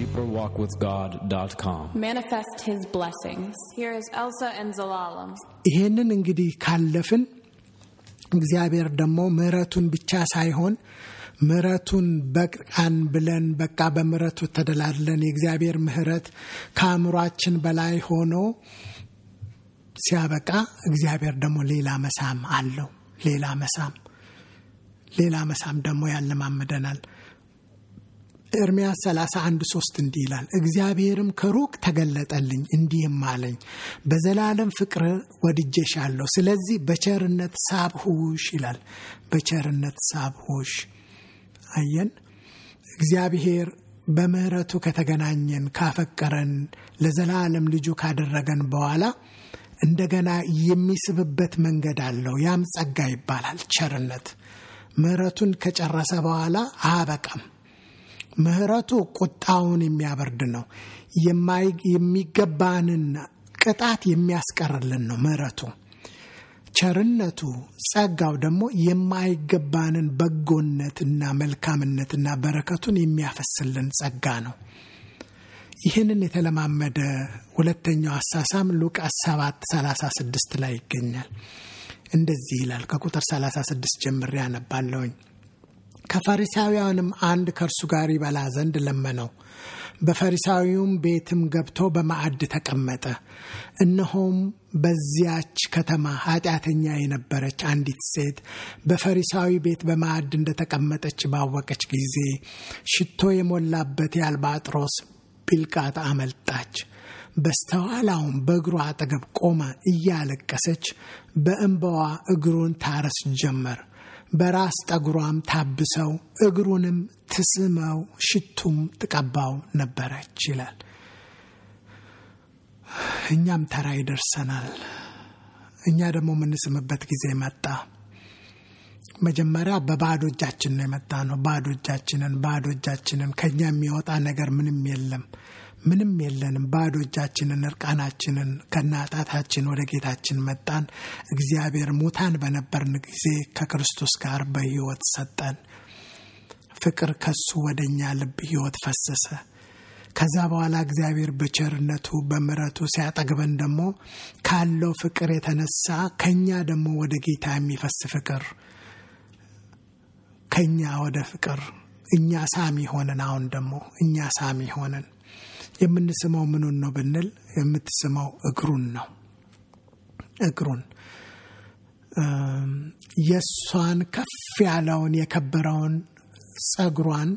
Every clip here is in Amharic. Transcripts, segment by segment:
deeperwalkwithgod.com. Manifest His blessings. Here is Elsa and Zelalem. ይሄንን እንግዲህ ካለፍን እግዚአብሔር ደግሞ ምሕረቱን ብቻ ሳይሆን ምሕረቱን በቃን ብለን በቃ በምሕረቱ ተደላድለን የእግዚአብሔር ምሕረት ከአእምሯችን በላይ ሆኖ ሲያበቃ እግዚአብሔር ደግሞ ሌላ መሳም አለው። ሌላ መሳም ደግሞ ያለማመደናል። ኤርምያስ 31:3 እንዲህ ይላል፣ እግዚአብሔርም ከሩቅ ተገለጠልኝ እንዲህም አለኝ፣ በዘላለም ፍቅር ወድጄሻለሁ፣ ስለዚህ በቸርነት ሳብሁሽ ይላል። በቸርነት ሳብሁሽ። አየን፣ እግዚአብሔር በምህረቱ ከተገናኘን ካፈቀረን ለዘላለም ልጁ ካደረገን በኋላ እንደገና የሚስብበት መንገድ አለው። ያም ጸጋ ይባላል። ቸርነት ምህረቱን ከጨረሰ በኋላ አበቃም። ምህረቱ ቁጣውን የሚያበርድ ነው። የሚገባንን ቅጣት የሚያስቀርልን ነው ምህረቱ። ቸርነቱ ጸጋው ደግሞ የማይገባንን በጎነትና መልካምነትና በረከቱን የሚያፈስልን ጸጋ ነው። ይህንን የተለማመደ ሁለተኛው አሳሳም ሉቃስ 7:36 ላይ ይገኛል። እንደዚህ ይላል። ከቁጥር 36 ጀምሬ አነባለሁኝ። ከፈሪሳውያንም አንድ ከእርሱ ጋር ይበላ ዘንድ ለመነው። በፈሪሳዊውም ቤትም ገብቶ በማዕድ ተቀመጠ። እነሆም በዚያች ከተማ ኃጢአተኛ የነበረች አንዲት ሴት በፈሪሳዊ ቤት በማዕድ እንደተቀመጠች ባወቀች ጊዜ ሽቶ የሞላበት የአልባጥሮስ ቢልቃጥ አመጣች። በስተኋላውም በእግሩ አጠገብ ቆማ እያለቀሰች በእንባዋ እግሩን ታረስ ጀመር። በራስ ጠጉሯም ታብሰው እግሩንም ትስመው ሽቱም ትቀባው ነበረች ይላል። እኛም ተራ ይደርሰናል። እኛ ደግሞ የምንስምበት ጊዜ መጣ። መጀመሪያ በባዶ እጃችን ነው የመጣ ነው። ባዶ እጃችንን ከኛ የሚወጣ ነገር ምንም የለንም። ባዶ እጃችንን እርቃናችንን ከናጣታችን ወደ ጌታችን መጣን። እግዚአብሔር ሙታን በነበርን ጊዜ ከክርስቶስ ጋር በሕይወት ሰጠን። ፍቅር ከሱ ወደኛ ልብ ሕይወት ፈሰሰ። ከዛ በኋላ እግዚአብሔር በቸርነቱ በምሕረቱ ሲያጠግበን ደግሞ ካለው ፍቅር የተነሳ ከኛ ደግሞ ወደ ጌታ የሚፈስ ፍቅር ከኛ ወደ ፍቅር እኛ ሳሚ ሆነን አሁን ደግሞ እኛ ሳሚ ሆነን የምንስመው ምኑን ነው ብንል የምትስመው እግሩን ነው። እግሩን የሷን ከፍ ያለውን የከበረውን ጸጉሯን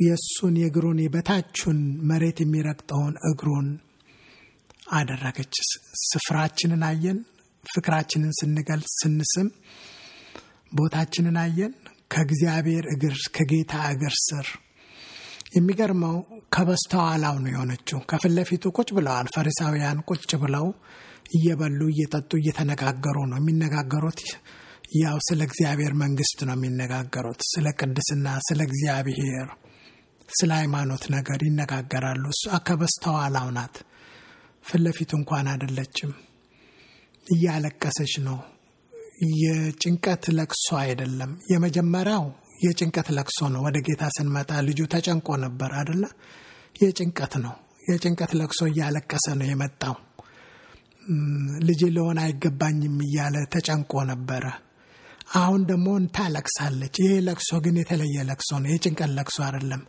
የሱን የእግሩን የበታቹን መሬት የሚረግጠውን እግሩን አደረገች። ስፍራችንን አየን። ፍቅራችንን ስንገልጽ ስንስም ቦታችንን አየን። ከእግዚአብሔር እግር ከጌታ እግር ስር የሚገርመው ከበስተኋላው ነው የሆነችው። ከፊት ለፊቱ ቁጭ ብለዋል ፈሪሳውያን። ቁጭ ብለው እየበሉ እየጠጡ እየተነጋገሩ ነው የሚነጋገሩት። ያው ስለ እግዚአብሔር መንግስት ነው የሚነጋገሩት። ስለ ቅድስና፣ ስለ እግዚአብሔር፣ ስለ ሃይማኖት ነገር ይነጋገራሉ። እሷ ከበስተኋላው ናት። ፊት ለፊቱ እንኳን አይደለችም። እያለቀሰች ነው። የጭንቀት ለቅሶ አይደለም። የመጀመሪያው የጭንቀት ለቅሶ ነው። ወደ ጌታ ስንመጣ ልጁ ተጨንቆ ነበር አይደለ? የጭንቀት ነው። የጭንቀት ለቅሶ እያለቀሰ ነው የመጣው። ልጅ ለሆነ አይገባኝም እያለ ተጨንቆ ነበረ። አሁን ደግሞ ታለቅሳለች። ይሄ ለቅሶ ግን የተለየ ለቅሶ ነው። የጭንቀት ለቅሶ አይደለም።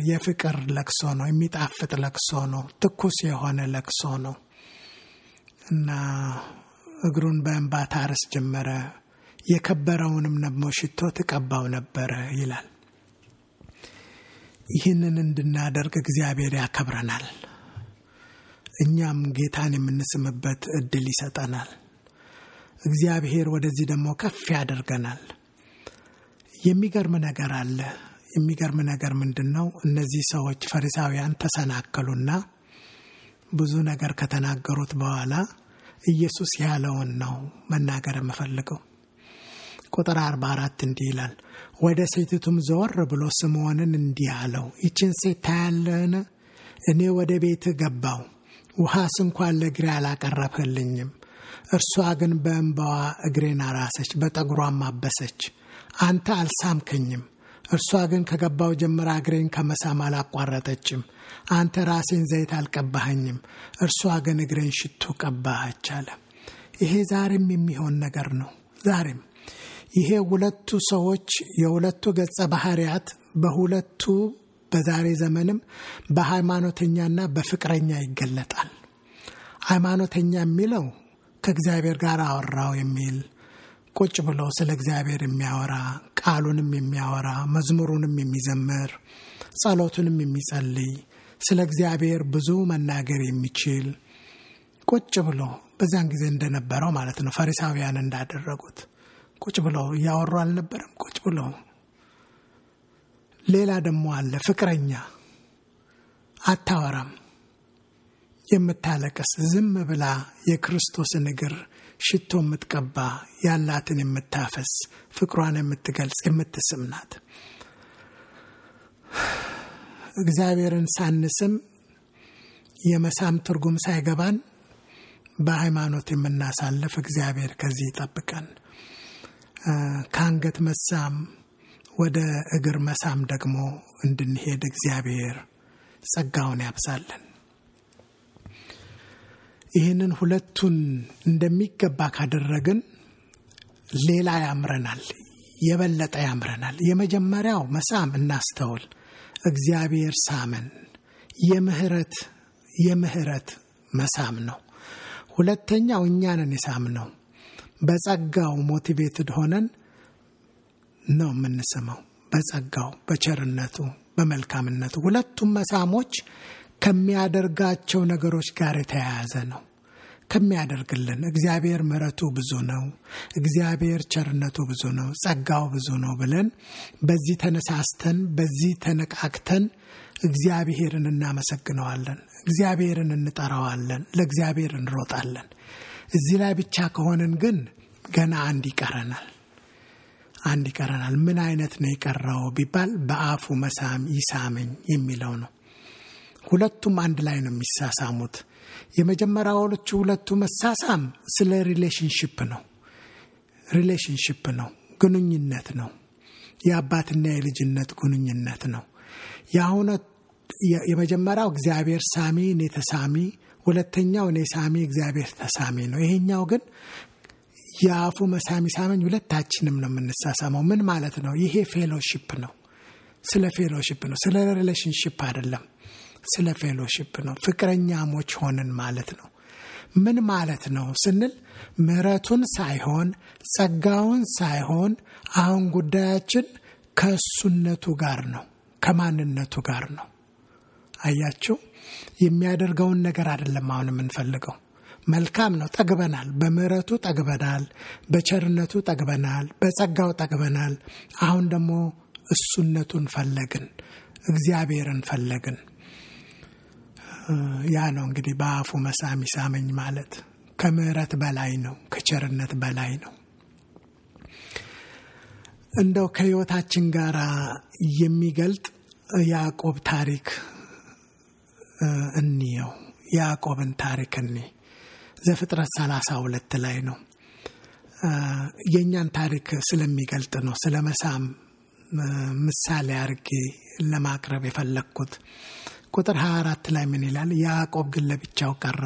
የፍቅር ለቅሶ ነው። የሚጣፍጥ ለቅሶ ነው። ትኩስ የሆነ ለቅሶ ነው እና እግሩን በእንባ ታርስ ጀመረ። የከበረውንም ደግሞ ሽቶ ትቀባው ነበረ ይላል። ይህንን እንድናደርግ እግዚአብሔር ያከብረናል። እኛም ጌታን የምንስምበት እድል ይሰጠናል። እግዚአብሔር ወደዚህ ደግሞ ከፍ ያደርገናል። የሚገርም ነገር አለ። የሚገርም ነገር ምንድነው? እነዚህ ሰዎች ፈሪሳውያን ተሰናከሉና ብዙ ነገር ከተናገሩት በኋላ ኢየሱስ ያለውን ነው መናገር የምፈልገው። ቁጥር 44 እንዲህ ይላል። ወደ ሴቲቱም ዘወር ብሎ ስምዖንን እንዲህ አለው፣ ይችን ሴት ታያለህን? እኔ ወደ ቤት ገባው፣ ውሃስ እንኳን ለእግሬ አላቀረብህልኝም። እርሷ ግን በእንባዋ እግሬን አራሰች፣ በጠጉሯም አበሰች። አንተ አልሳምከኝም፣ እርሷ ግን ከገባው ጀምራ እግሬን ከመሳም አላቋረጠችም። አንተ ራሴን ዘይት አልቀባኸኝም፣ እርሷ ግን እግሬን ሽቱ ቀባች አለ። ይሄ ዛሬም የሚሆን ነገር ነው። ዛሬም ይሄ ሁለቱ ሰዎች የሁለቱ ገጸ ባህሪያት በሁለቱ በዛሬ ዘመንም በሃይማኖተኛና በፍቅረኛ ይገለጣል። ሃይማኖተኛ የሚለው ከእግዚአብሔር ጋር አወራው የሚል ቁጭ ብሎ ስለ እግዚአብሔር የሚያወራ ቃሉንም የሚያወራ መዝሙሩንም የሚዘምር ጸሎቱንም የሚጸልይ ስለ እግዚአብሔር ብዙ መናገር የሚችል ቁጭ ብሎ በዛን ጊዜ እንደነበረው ማለት ነው። ፈሪሳውያን እንዳደረጉት ቁጭ ብሎ ያወሩ አልነበረም። ቁጭ ብሎ ሌላ ደግሞ አለ ፍቅረኛ፣ አታወራም፣ የምታለቅስ ዝም ብላ የክርስቶስን እግር ሽቶ የምትቀባ ያላትን የምታፈስ ፍቅሯን የምትገልጽ የምትስም ናት። እግዚአብሔርን ሳንስም የመሳም ትርጉም ሳይገባን በሃይማኖት የምናሳልፍ እግዚአብሔር ከዚህ ይጠብቀን። ከአንገት መሳም ወደ እግር መሳም ደግሞ እንድንሄድ እግዚአብሔር ጸጋውን ያብዛልን። ይህንን ሁለቱን እንደሚገባ ካደረግን ሌላ ያምረናል፣ የበለጠ ያምረናል። የመጀመሪያው መሳም እናስተውል፣ እግዚአብሔር ሳመን፣ የምህረት መሳም ነው። ሁለተኛው እኛንን የሳምነው በጸጋው ሞቲቬትድ ሆነን ነው የምንስመው፣ በጸጋው በቸርነቱ በመልካምነቱ። ሁለቱም መሳሞች ከሚያደርጋቸው ነገሮች ጋር የተያያዘ ነው። ከሚያደርግልን እግዚአብሔር ምሕረቱ ብዙ ነው፣ እግዚአብሔር ቸርነቱ ብዙ ነው፣ ጸጋው ብዙ ነው ብለን በዚህ ተነሳስተን በዚህ ተነቃቅተን እግዚአብሔርን እናመሰግነዋለን፣ እግዚአብሔርን እንጠራዋለን፣ ለእግዚአብሔር እንሮጣለን። እዚህ ላይ ብቻ ከሆንን ግን ገና አንድ ይቀረናል። ምን አይነት ነው የቀረው ቢባል በአፉ መሳም ይሳመኝ የሚለው ነው። ሁለቱም አንድ ላይ ነው የሚሳሳሙት። የመጀመሪያዎቹ ሁለቱ መሳሳም ስለ ሪሌሽንሺፕ ነው፣ ግንኙነት ነው፣ የአባትና የልጅነት ግንኙነት ነው። የመጀመሪያው እግዚአብሔር ሳሚ እኔ ተሳሚ፣ ሁለተኛው እኔ ሳሚ እግዚአብሔር ተሳሚ ነው። ይሄኛው ግን የአፉ መሳሚ ሳመኝ ሁለታችንም ነው የምንሳሳመው። ምን ማለት ነው? ይሄ ፌሎሺፕ ነው። ስለ ፌሎሺፕ ነው፣ ስለ ሪሌሽንሺፕ አይደለም፣ ስለ ፌሎሺፕ ነው። ፍቅረኛሞች ሆነን ማለት ነው። ምን ማለት ነው ስንል ምሕረቱን ሳይሆን ጸጋውን ሳይሆን አሁን ጉዳያችን ከእሱነቱ ጋር ነው፣ ከማንነቱ ጋር ነው። አያችሁ፣ የሚያደርገውን ነገር አይደለም አሁን የምንፈልገው። መልካም ነው፣ ጠግበናል፣ በምህረቱ ጠግበናል፣ በቸርነቱ ጠግበናል፣ በጸጋው ጠግበናል። አሁን ደግሞ እሱነቱን ፈለግን፣ እግዚአብሔርን ፈለግን። ያ ነው እንግዲህ በአፉ መሳም ይሳመኝ ማለት። ከምህረት በላይ ነው፣ ከቸርነት በላይ ነው። እንደው ከህይወታችን ጋር የሚገልጥ ያዕቆብ ታሪክ እንየው። ያዕቆብን ታሪክ ዘፍጥረት 32 ላይ ነው። የኛን ታሪክ ስለሚገልጥ ነው ስለ መሳም ምሳሌ አድርጌ ለማቅረብ የፈለኩት። ቁጥር 24 ላይ ምን ይላል? ያዕቆብ ግን ለብቻው ቀረ፣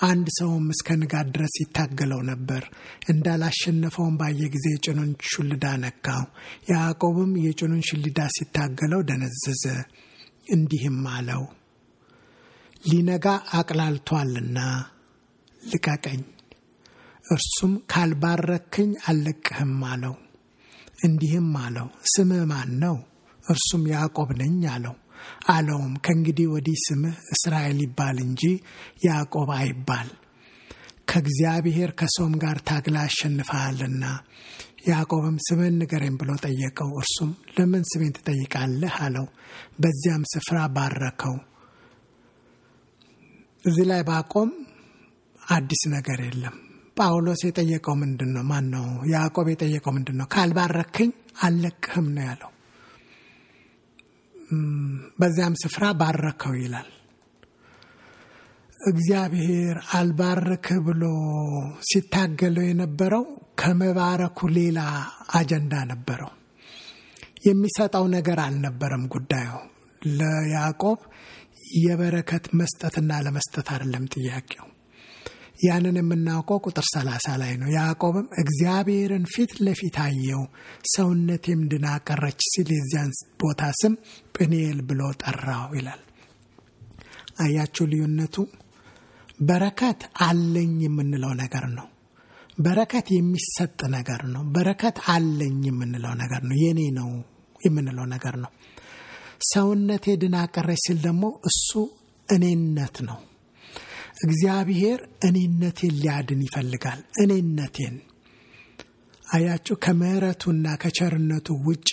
አንድ ሰውም እስከ ንጋት ድረስ ይታገለው ነበር። እንዳላሸነፈውም ባየ ጊዜ የጭኑን ሹልዳ ነካው። ያዕቆብም የጭኑን ሹልዳ ሲታገለው ደነዘዘ፣ እንዲህም አለው፣ ሊነጋ አቅላልቷልና ልቀቀኝ። እርሱም ካልባረክኝ አልለቅህም አለው። እንዲህም አለው፣ ስምህ ማን ነው? እርሱም ያዕቆብ ነኝ አለው። አለውም ከእንግዲህ ወዲህ ስምህ እስራኤል ይባል እንጂ ያዕቆብ አይባል፣ ከእግዚአብሔር ከሰውም ጋር ታግላ አሸንፈሃልና። ያዕቆብም ስምህን ንገረኝ ብሎ ጠየቀው። እርሱም ለምን ስሜን ትጠይቃለህ አለው። በዚያም ስፍራ ባረከው። እዚህ ላይ ባቆም አዲስ ነገር የለም። ጳውሎስ የጠየቀው ምንድነው? ማነው ያዕቆብ የጠየቀው ምንድነው? ካልባረክኝ አልለቅህም ነው ያለው። በዚያም ስፍራ ባረከው ይላል። እግዚአብሔር አልባረክህ ብሎ ሲታገለው የነበረው ከመባረኩ ሌላ አጀንዳ ነበረው። የሚሰጣው ነገር አልነበረም ጉዳዩ። ለያዕቆብ የበረከት መስጠትና ለመስጠት አይደለም ጥያቄው። ያንን የምናውቀው ቁጥር 30 ላይ ነው። ያዕቆብም እግዚአብሔርን ፊት ለፊት አየው፣ ሰውነቴም ድና ቀረች ሲል የዚያን ቦታ ስም ጵኒኤል ብሎ ጠራው ይላል። አያችሁ ልዩነቱ? በረከት አለኝ የምንለው ነገር ነው። በረከት የሚሰጥ ነገር ነው። በረከት አለኝ የምንለው ነገር ነው። የኔ ነው የምንለው ነገር ነው። ሰውነቴ ድና ቀረች ሲል ደግሞ እሱ እኔነት ነው። እግዚአብሔር እኔነቴን ሊያድን ይፈልጋል። እኔነቴን አያችሁ። ከምህረቱና ከቸርነቱ ውጪ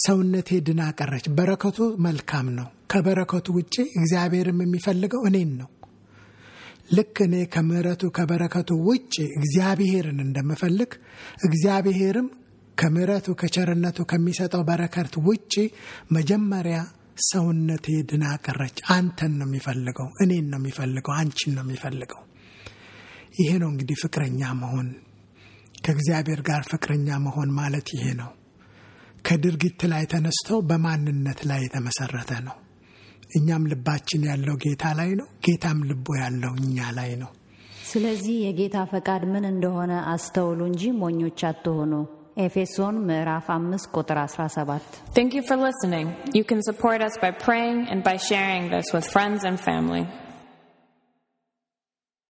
ሰውነቴ ድና ቀረች። በረከቱ መልካም ነው። ከበረከቱ ውጪ እግዚአብሔርም የሚፈልገው እኔን ነው። ልክ እኔ ከምህረቱ ከበረከቱ ውጪ እግዚአብሔርን እንደምፈልግ እግዚአብሔርም ከምህረቱ ከቸርነቱ ከሚሰጠው በረከት ውጪ መጀመሪያ ሰውነቴ ድና ቀረች። አንተን ነው የሚፈልገው፣ እኔን ነው የሚፈልገው፣ አንቺን ነው የሚፈልገው። ይሄ ነው እንግዲህ ፍቅረኛ መሆን። ከእግዚአብሔር ጋር ፍቅረኛ መሆን ማለት ይሄ ነው። ከድርጊት ላይ ተነስቶ በማንነት ላይ የተመሰረተ ነው። እኛም ልባችን ያለው ጌታ ላይ ነው፣ ጌታም ልቦ ያለው እኛ ላይ ነው። ስለዚህ የጌታ ፈቃድ ምን እንደሆነ አስተውሉ እንጂ ሞኞች አትሆኑ። ኤፌሶን ምዕራፍ 5 ቁጥር 17። Thank you for listening. You can support us by praying and by sharing this with friends and family.